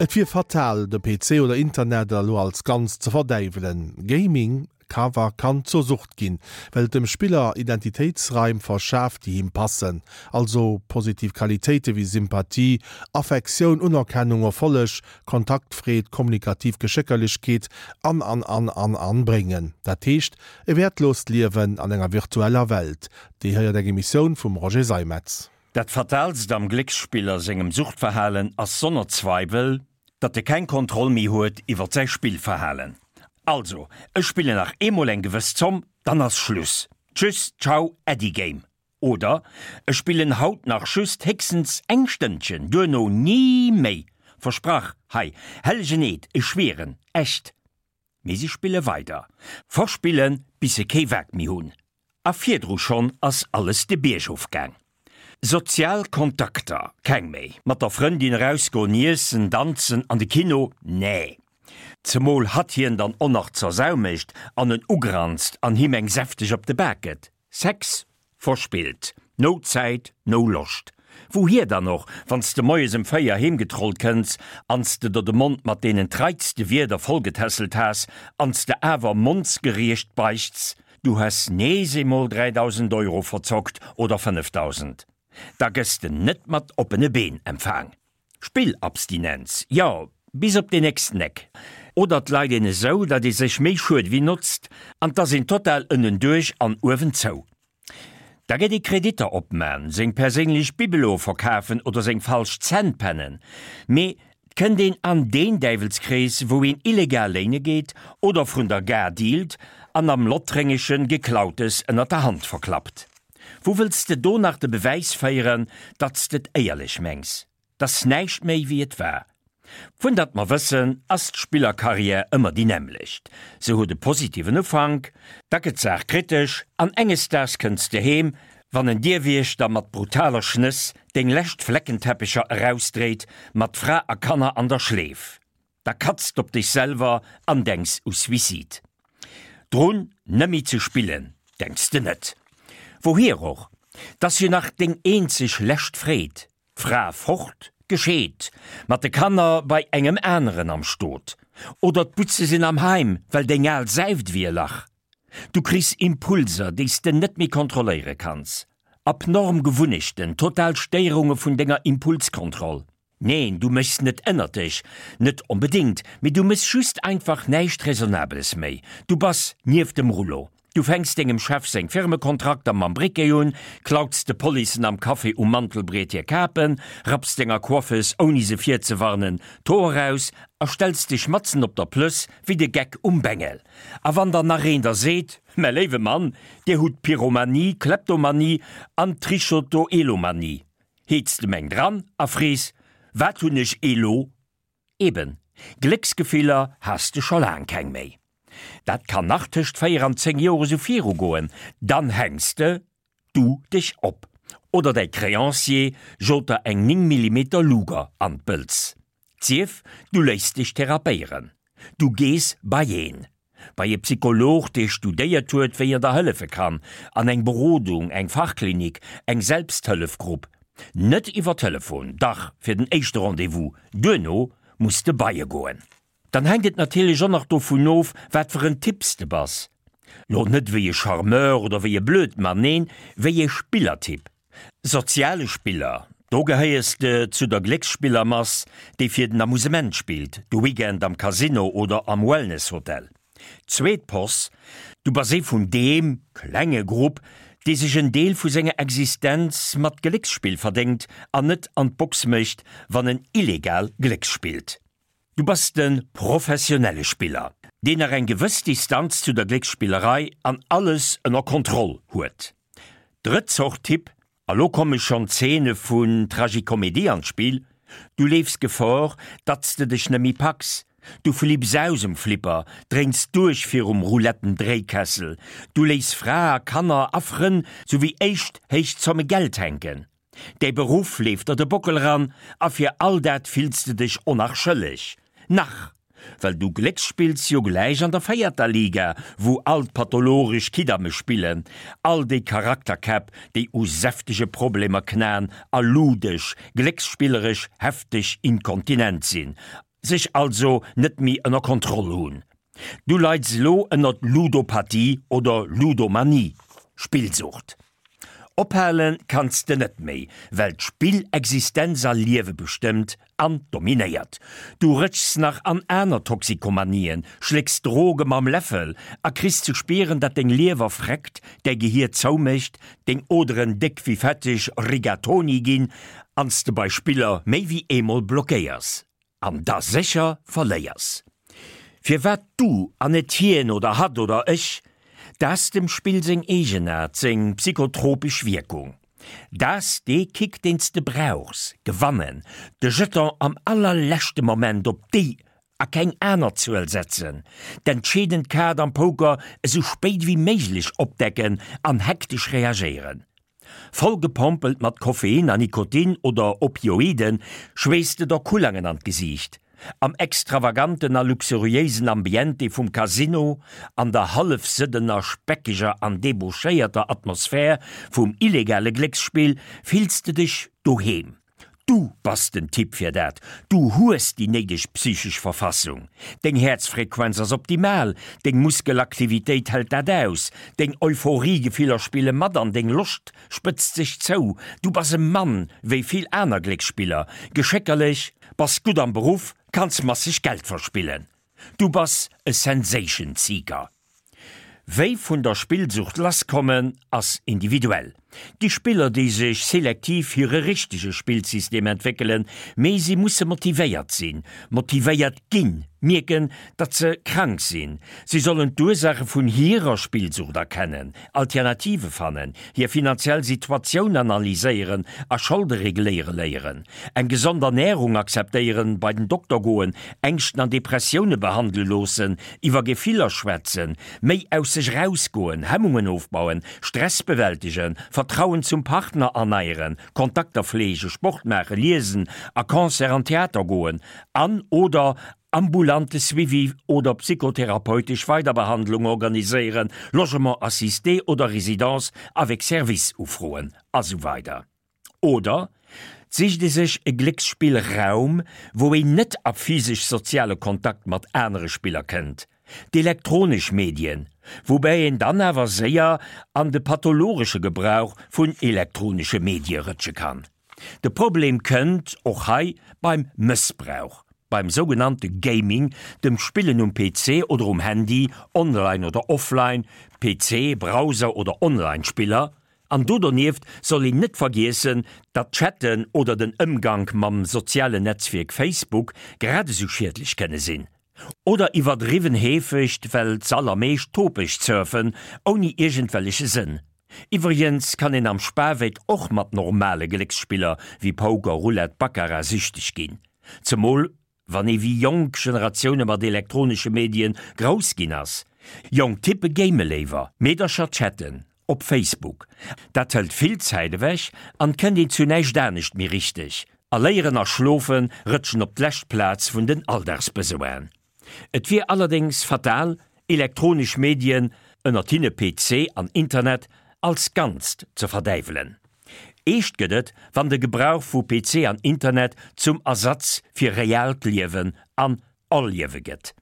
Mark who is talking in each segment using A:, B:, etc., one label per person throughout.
A: Et wier fatal, de PC oder Internet elo als Ganzt ze verdäiwelen. Gaming ka wa kann zur Sucht ginn, well et dem Spiller Identitéitsraim verschaaft, déi him passen, also positiv Qualitéite wéi Sympathie, Affektioun, Unerkennung, Erfolleg, Kontaktfreed, kommunikativ Geschéckerlechkeet an an an an an bréngen. Dat heescht e wäertloost Liewen an enger virtueller Welt. Déi héiert eng Emissioun vum Roger Seimetz.
B: Dat Fataalst am Glécksspiller sengem Suchtverhalen ass sonner Zweiwel, datt e keng Kontroll méi huet iwwert säi Spillverhalen. Also, ech spillen nach eemol eng gewëss Zomm, dann ass Schluss. Tschüss, ciao, Äddi Game. Oder, ech spillen haut nach just héchstens eng Stënnchen, duerno ni méi. Versprach, hei, hellegen Eed, ech schwieren, echt. Mee si spille weider, verspillen, bis se kee Waack méi hunn. A virdru schonn ass alles de Bierg ofgaang. Sozial Kontakter, keng méi. Mat der Frëndin erausgoen, iessen, danzen, an de Kino, nee. Zemol hatt hien dann och nach zur Sau mécht an en ugranzt an him eng säfteg op de Bak gëtt. Sex? Verspillt. No Zäit, no Loscht. Wouhier dann och, wann s de moies ëm 4 heem getrollt kënns an s de der de Mond mat deenen treitste Wierder vollgetässelt has an s de awer mondsgeriecht beichts, du häss nees eemol 3.000 Euro verzockt oder 5.000. Da gëss de net mat oppene Been empfaang. Spillabstinenz, jo, bis op den nächsten Eck. Oder 't leit een esou, datt ee sech méi schued ewéi notzt an 't ass een total ënnenduerch an uewen zou. Da gëtt ee Kreditter opman, seng perséinlech Bibeloe verkafen oder seng falsch Zänn pennen. Mee 't kënnt een an deen Däiwelskrees, wou een illegal léine geet oder vrun der Gare dealt an am Lottréngeschen Geklautes ënnert der Hand verklappt. Wou wëlls de do nach de Bewäis féieren, datt s d'et éierlech mengs? T'ass näischt méi wéi et war. Vun datt mer wëssen, ass d'Spillerkarriär ëmmer déi nämmlecht. Se huet e positiven Ufank, da gëtt d'Saach kritesch an enges Daags kënns de heem, wann en Dierwiechter mat brutaler Schnëss deng lescht Fleckenteppecher erausdréit, mat Fra a Kanner an der Schleef. Da katzt op dech selwer an denks u Suicide. Drun nëmmi ze spillen denks de net. Wouhier och, 't ass jo nach deng eenzeg lescht Freed, d'Fra fort, gescheet, mat de Kanner bei engem aneren am Stot, oder d'Butze sinn am Heim, well deng al säift ewéi e Lach. Du kriss Impulser, déi s de net méi kontrolléiere kanns, abnorm Gewunnechten, total Stéierunge vun denger Impulskontroll. Neen, du méchs net ënnert dech, net onbedéngt, mee du méchs just einfach näischt Raisonnabeles méi. Du bass nieft dem Rullo. Du fänks dengem Chef seng Firmekontrakter mam Briquet un, klauts de Policen am Café um Mantelbriet hir Kapen, rapps denger Coiffeuse, ouni se virzewarnen, d'Hoer aus a stells dech matzen op der Plëss wéi de Geck um Bengel. A wann dann nach een der seet, Mä léiwe Mann, Dir hutt Pyromanie, Kleptomanie an Trichotoelomanie, Heets de meng dran a frees, Wat hunn ech elo? Eben, Glécksgefiller has de scho laang keng méi. Dat kann nach tëscht 4 an 10 Joer esou virugoen, dann hänks de du dech op oder däi Créancier jot der eng 9 Millimeter Luger an d'Bëlz. Sief, du léiss dech therapéieren, du gees bei een. Bei e Psycholog, dee studéiert huet, wéi en der hëllefe kann, an eng Berodung, eng Fachklinik, eng Selbsthëllefgrupp. Net iwwer Telefon, dach, fir den éischte Rendez-vous, duerno muss de bei e goen. Dann hänkt et natierlech och nach dovun of, wat fir en Typ s de bass. Lo net wéi e Charmeur oder wéi e Blödmann, neen, wéi e Spillertyp. Soziale Spiller, do gehéiers de zu der Glécksspillermass, déi fir den Amusement spillt, de Weekend am Casino oder am Wellnesshotel. Zweet Poss, du bass ee vun deem, klenge, Grupp, dee sech en Deel vu senger Existenz mat Glécksspill verdéngt an net an d'Box mécht, wann en illegal glécksspillt. Du bass de professionelle Spiller, deen nach eng gewëss Distanz zu der Glécksspillerei an alles ënner Kontroll huet. Drëtt Zort Typ, a lo komme schonn Zeene vun Tragicomédie an d'Spill, Du leefs Gefor, datt s de dech net méi packs, du flipps aus um Flipper, dréins duerch virum Rouletten-Dréikessel, du léiss Fra a Kanner a Frënn souwéi éischt héich Zomme Geld hänken. Däi Beruff leeft der de Bockel ran a fir all dat fills de dech o nach schëlleg. Nach! Well du glécksspills jo gläich an der véierter Liga, wou all d'pathologesch Kiddamme spillen, all déi Charakterkäpp, déi u säftege Problemer knaen a ludesch, glécksspilleresch hefteg inkontinent sinn. Sech also net méi ënner Kontroll hunn. Du leids elo ënnert Ludopathie oder Ludomanie, Spillsucht. Ophale kanns de net méi, well d'Spill Existenz a Liewe bestëmmt an dominéiert. Du rëtschs nach an aner Toxikomanien, schlécks Droge mam Läffel a kriss ze spieren, dat deng Liewer freckt, däi Gehier zoumécht, deng Oderen déck wéi fetteg Rigatoni ginn an s de bei Spiller méi wéi eemol blockéiers. An da sécher verléiers. Firwat du an net hien oder hatt oder ech? T'ass dem Spill seng Eegenaart, seng psychotropesch Wierkung. T'ass dee Kick deen s de brauchs, gewannen, de Jeton am allerleschte Moment op déi a keng aner Zuel setzen, d'entscheedend Kaart am Poker esou spéit ewéi méiglech opdecken an hektesch reagéieren. Voll gepompelt mat Koffein a Nikotin oder Opioiden schweesst de der Kullangen an d'Gesiicht. Am extravaganten a luxuriéisen Ambiente vum Casino, an der hallefsëddener, speckeger an debauchéierter Atmosphär vum illegale Glécksspill fills de dech doheem. Du bass den Typ fir dat, du hues déi néideg psychesch Verfassung, deng Häerzfrequenz ass optimal, deng Muskelaktivitéit hält dat aus, deng Euphoriegefiller spille mat an deng Loscht spëtzt sech zou. Du bass e Mann wéi vill aner Glécksspiller, geschéckerlech, bass gutt am Beruff, kanns masseg Geld verspillen. Du bass e Sensation Seeker. Wéi vun der Spillsucht lass kommen ass individuell. Gi Spiller déi sech selektiv hire richtege Spillsystem entwéckelen, mee si musse motivéiert sinn, motivéiert ginn, mierken datt se krank sinn. Si sollen d'Ursaache vun hirer Spillsucht erkennen, Alternative fannen, hir finanziell Situatioun analyséieren a Scholde regléiere léieren, eng gesond Ernärung akzeptéieren, bei den Dokter goen, Ängschten an Depressioune behandele loossen, iwwer Gefiller schwätzen, méi aus sech erausgoen, Hemmungen ofbauen, Stress bewältegen, Vertrauen zum Partner erneieren, Kontakter fleegen, Sport maachen, liesen, a Concert an Theater goen an, oder ambulante Suivi oder psychotherapeutesch Weiderbehandlung organiséieren, Logement assisté oder Résidence avec service ufroen, a sou weider. Oder sicht ee sech e Glécksspillraum, wou een net a physesch-soziale Kontakt mat anere Spiller kënnt, d'elektronesch Medien, woubäi een dann awer séier an de pathologesche Gebrauch vun elektronesche Medie rëtsche kann. De Problem kënnt och hei beim Mëssbrauch, beim sougenannte Gaming, dem Spillen um PC oder um Handy, online oder offline, PC, Browser oder Online-Spiller. An do donieft soll een net vergiessen, datt d'Chatten oder den Ëmgank mam sozialen Netzwierk Facebook grad esou schiedlech kënne sinn. Oder iwwerdriwwen heefegt, well z'allermeescht topeg surfen, ouni iergendwelleche Sënn. Iwwregens kann een am Spaweck och mat normale Glécksspiller wéi Poker, Roulette, Baccarat süchteg ginn. Zemol wann ee wéi jonk Generatioune mat elektronesche Medien grouss ginn ass. Jonk Typpe game léiwer, Meedercher chatten op Facebook. Dat hëlt vill Zäit ewech an kënnt een zu näischt anescht méi richteg. A léieren a schlofe rëtschen op d'lescht Plaz vun den Alldagsbesoinen. Et wier allerdéngs fatal, elektronesch Medien, ënnert hinne PC an Internet, als Ganzt ze verdäiwelen. Eescht gëtt et, wann de Gebrauch vu PC an Internet zum Ersatz fir reaalt Liewen an Erliewe gëtt.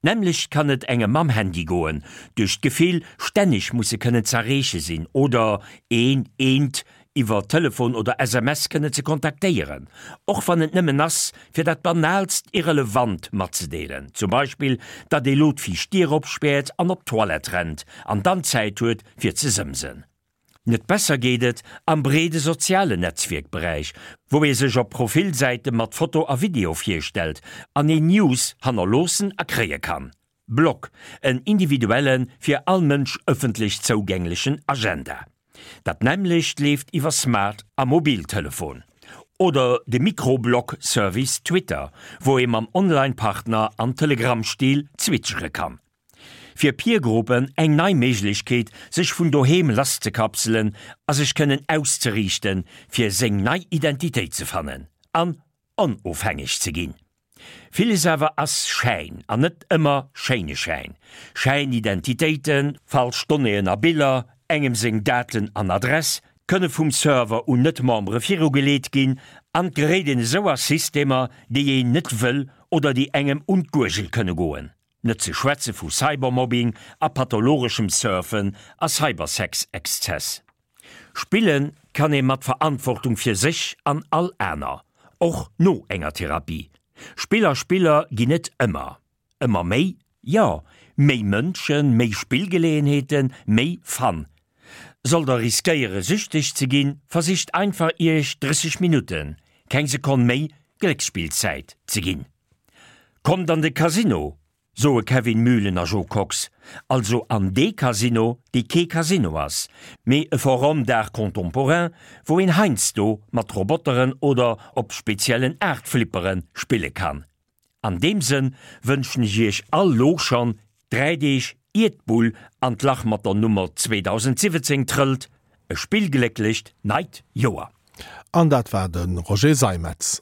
B: D'nämmlecht kann et engem mam Handy goen, duerch d'Gefill, stänneg musse kënnen z'erreeche sinn oder een, eent iwwer Telefon oder SMS kënnen ze kontaktéieren, och wann et nëmmen ass, fir dat banaalst Irrelevant matzedeelen, zum Beispill, datt ee lo d'viischt Dier opspäert an op d'Toilette rennt an dann Zäit huet, fir ze sëmsen. Net besser geet et am breede sozialen Netzwierkberäich, wou ee sech op Profilsäite mat Foto a Video virstellt an een News hannerloossen a kréie kann. Blog, en individuellen, fir all Mënsch ëffentlech zougänglechen Agenda. Dat nämmlecht leeft iwwer Smart a Mobiltelefon. Oder de Mikroblog-Service Twitter, wou ee mam Online-Partner am Telegram-Stil zwitschere kann. Fir Peergruppen eng nei Méiglechkeet, sech vun doheem lasszekapselen a sech kënnen auszeriichten, fir seng nei Identitéit ze fannen an onofhängeg ze ginn. Villes awer ass Schäin an net ëmmer schéine Schäin. Schäinidentitéiten, falsch Donnéeën a Biller, engem seng Daten an Adress kënne vum Server un Net-Membere virugeleet ginn. An 't geréit een esou a Systemer, déi een net wëll oder déi engem un d'Guergel kënne goen. Net ze schwätze vu Cybermobbing a pathologeschem Surfen a Cybersex-Exzess. Spille kann ee mat Verantwortung fir sech an all aner, och no enger Therapie. Spill a Spiller ginn et ëmmer. Ëmmer méi? Jo, méi Mënschen, méi Spillgeleeënheeten, méi Fun. Sollt der riskéiere süchteg ze ginn, versicht einfach iech 30 Minutten, keng Sekonn méi, Glécksspillzäit ze ginn. Kommt an de Casino, soe Kevin Mühlen a Jo Kox, also an dee Casino, dee kee Casino ass, mee e Forum d'art contemporain, wou een heiansdo mat Roboteren oder op speziellen Aartflippere spille kann. An deem Sënn wënschen ech iech all lo schonn, 3 Deeg ier d'Bull an d'Lach mat der Nummer 2017 trëllt, e spillglécklecht neit Joer.
A: An dat war de Roger Seimetz.